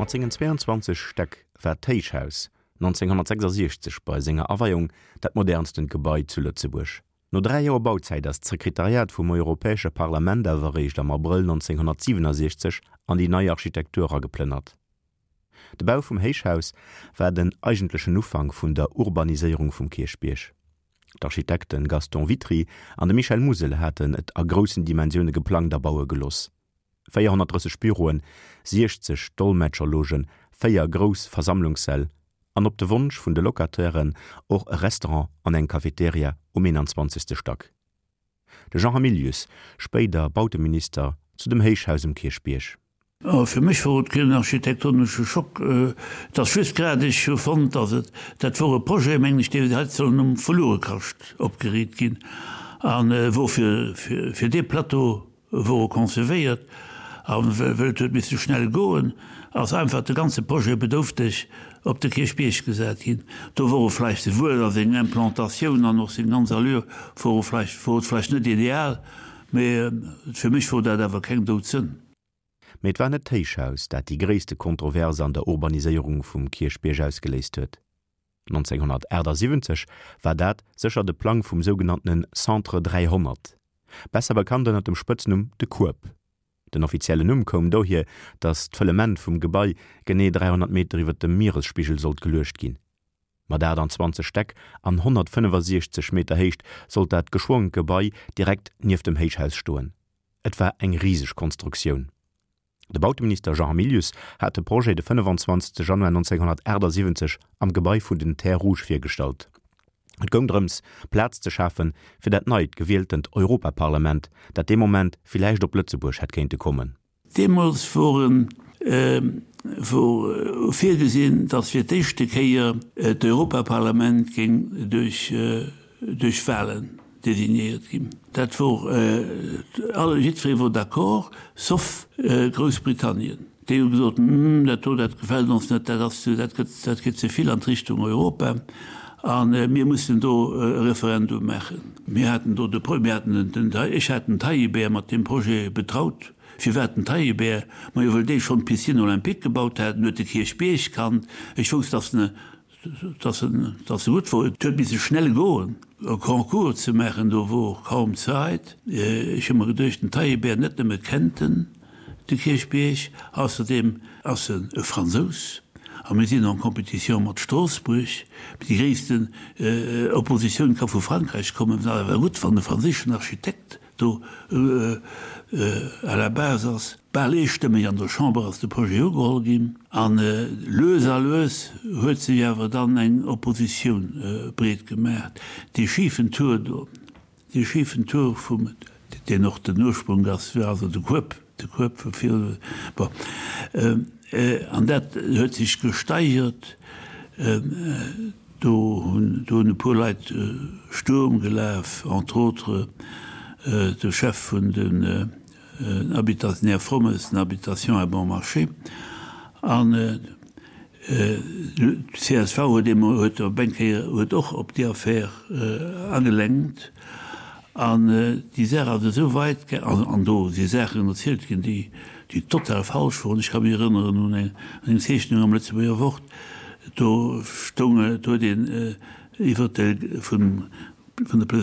Mat sengen 22 Stäck war d'Héichhaus 1966 bei senger Aweiung dat modernstent Gebai zu Lëtzebuerg. No 3 Joer Bauzäit ass d'Sekretariat vum Europäesche Parlament awer eréischt am Abrëll 1967 an déi nei Architektur erageplënnert. De Bau vum Héichhaus war den eigentlechen Ufank vun der Urbaniséierung vum Kierchbierg. D'Architekte Gaston Witry an de Michel Musel haten et a groussen Dimensioune geplangt a baue gelooss. 430 Büroen, 60 Dolmetscherlogen, 4 grouss Versammlungssäll an op de Wonsch vun de Locatairen och e Restaurant an eng Cafeteria um 21. Stack. De Jean Hamilius, spéider Bauteminister, zu dem Héichhaus um Kierchbierg. Fir mech wor et keen architektonesche Schock. Et ass just grad, ech hu fonnt, datt et, dat wor e Projet, mengen ech, dee hätt sollen um Verluerekascht opgeriit ginn a wor fir, fir dee Plateau wor e concevéiert a wëll et huet misse schnell goen, ass einfach de ganze Projet bedoufteg op de Kierchbierg gesat ginn. Do wor e vläicht souwuel a seng Implantatioun an och seng ganz Allure wor e vläicht, wor et vläicht net ideal, mee fir mech wor dat awer keng Doudsënn. Mee et war net d'Héichhaus, dat déi gréisste Kontroverse an der Urbaniséierung vum Kierchbierg ausgeléist huet. 1978 war dat sécher de Plang vum sougenanntene Centre 300, besser bekannt ënner dem Spëtznumm de Kueb. Den offiziellen Numm koum dohier, datt d'Fëllement vum Gebai genee 300 Meter iwwer dem Mieresspigel sollt geluecht ginn. Mat 28 Stäck an 165 Meter Héicht sollt dat geschwongent Gebai direkt nieft dem Héichhaus stoen. Et war eng riseg Konstruktioun. De Bauteminister Jean Hamilius hat de Projet de 25 Januar 1978 am Gebai vun den Terres Rouges virgestallt. Et goung drëms, Plaz ze schafe fir dat neit gewieltent Europaparlament, dat dee Moment villäicht op Lëtzebuerg hätt kéinte kommen. Deemools wor wor virgesinn, datt fir d'éischte Kéier d'Europaparlament géing duerch duerch Wahlen designéiert ginn. Dat wor, alle, jiddweree wor d'accord, sauf Groussbritannien. Déi hu gesot, Hm, dat do, dat gefält ons net, dat ass ze, dat gëtt, dat geet ze vill an d'Richtung Europa a mir mussen do e Referendum maachen. Mir haten do de Pro, mir haten den, ech hat den Taillibert mat deem Projet betraut. Firwat den Taillibert? Majo, wëll dee schonn d'Piscine olympique gebaut hat, en huet de Kierchbierg kannt. Ech wousst, datt en Dass en, dass e gutt wor. Et huet misse schnell goen, e Concours ze maachen, do wor kaum Zait. Ech hu mer geduecht, den Taillibert, net nëmme kennt en de Kierchbierg, ausserdeem ass en e Fransous a mir sinn en compétition mat Stroossbuerg. Déi gréissten Oppositioun ka vu Frankräich kommen. Et ass awer gutt, wann e franséischen Architekt do à la base ass. Bal eestëmmeg an der Chamber ass de Projet ugeholl ginn an lues a lues huet sech awer dann eng Oppositioun breet gemaach. Dee schifen Tour do, dee schifen Tour vum, deen och den Ursprunk ass, also de Kueb, de Kueb vu viru, bon, an dat huet sech gesteigert. Do hunn do hunn e puer Leit Sturm gelaf, entre autres de Chef vun den Habitat, den Här Frommes, den Habitations à bon marché. An d'CSV huet eemol, huet op eng Kéier, huet och op déi Affär agelenkt. An déi Saach ass esou weit gaang, an do si Saachen erzielt ginn, déi, déi total falsch woren. Ech ka mech erënneren un eng Zeechnung am Lëtzebuerger Wort, do stoung, do huet een iwwert de, vun, vun der.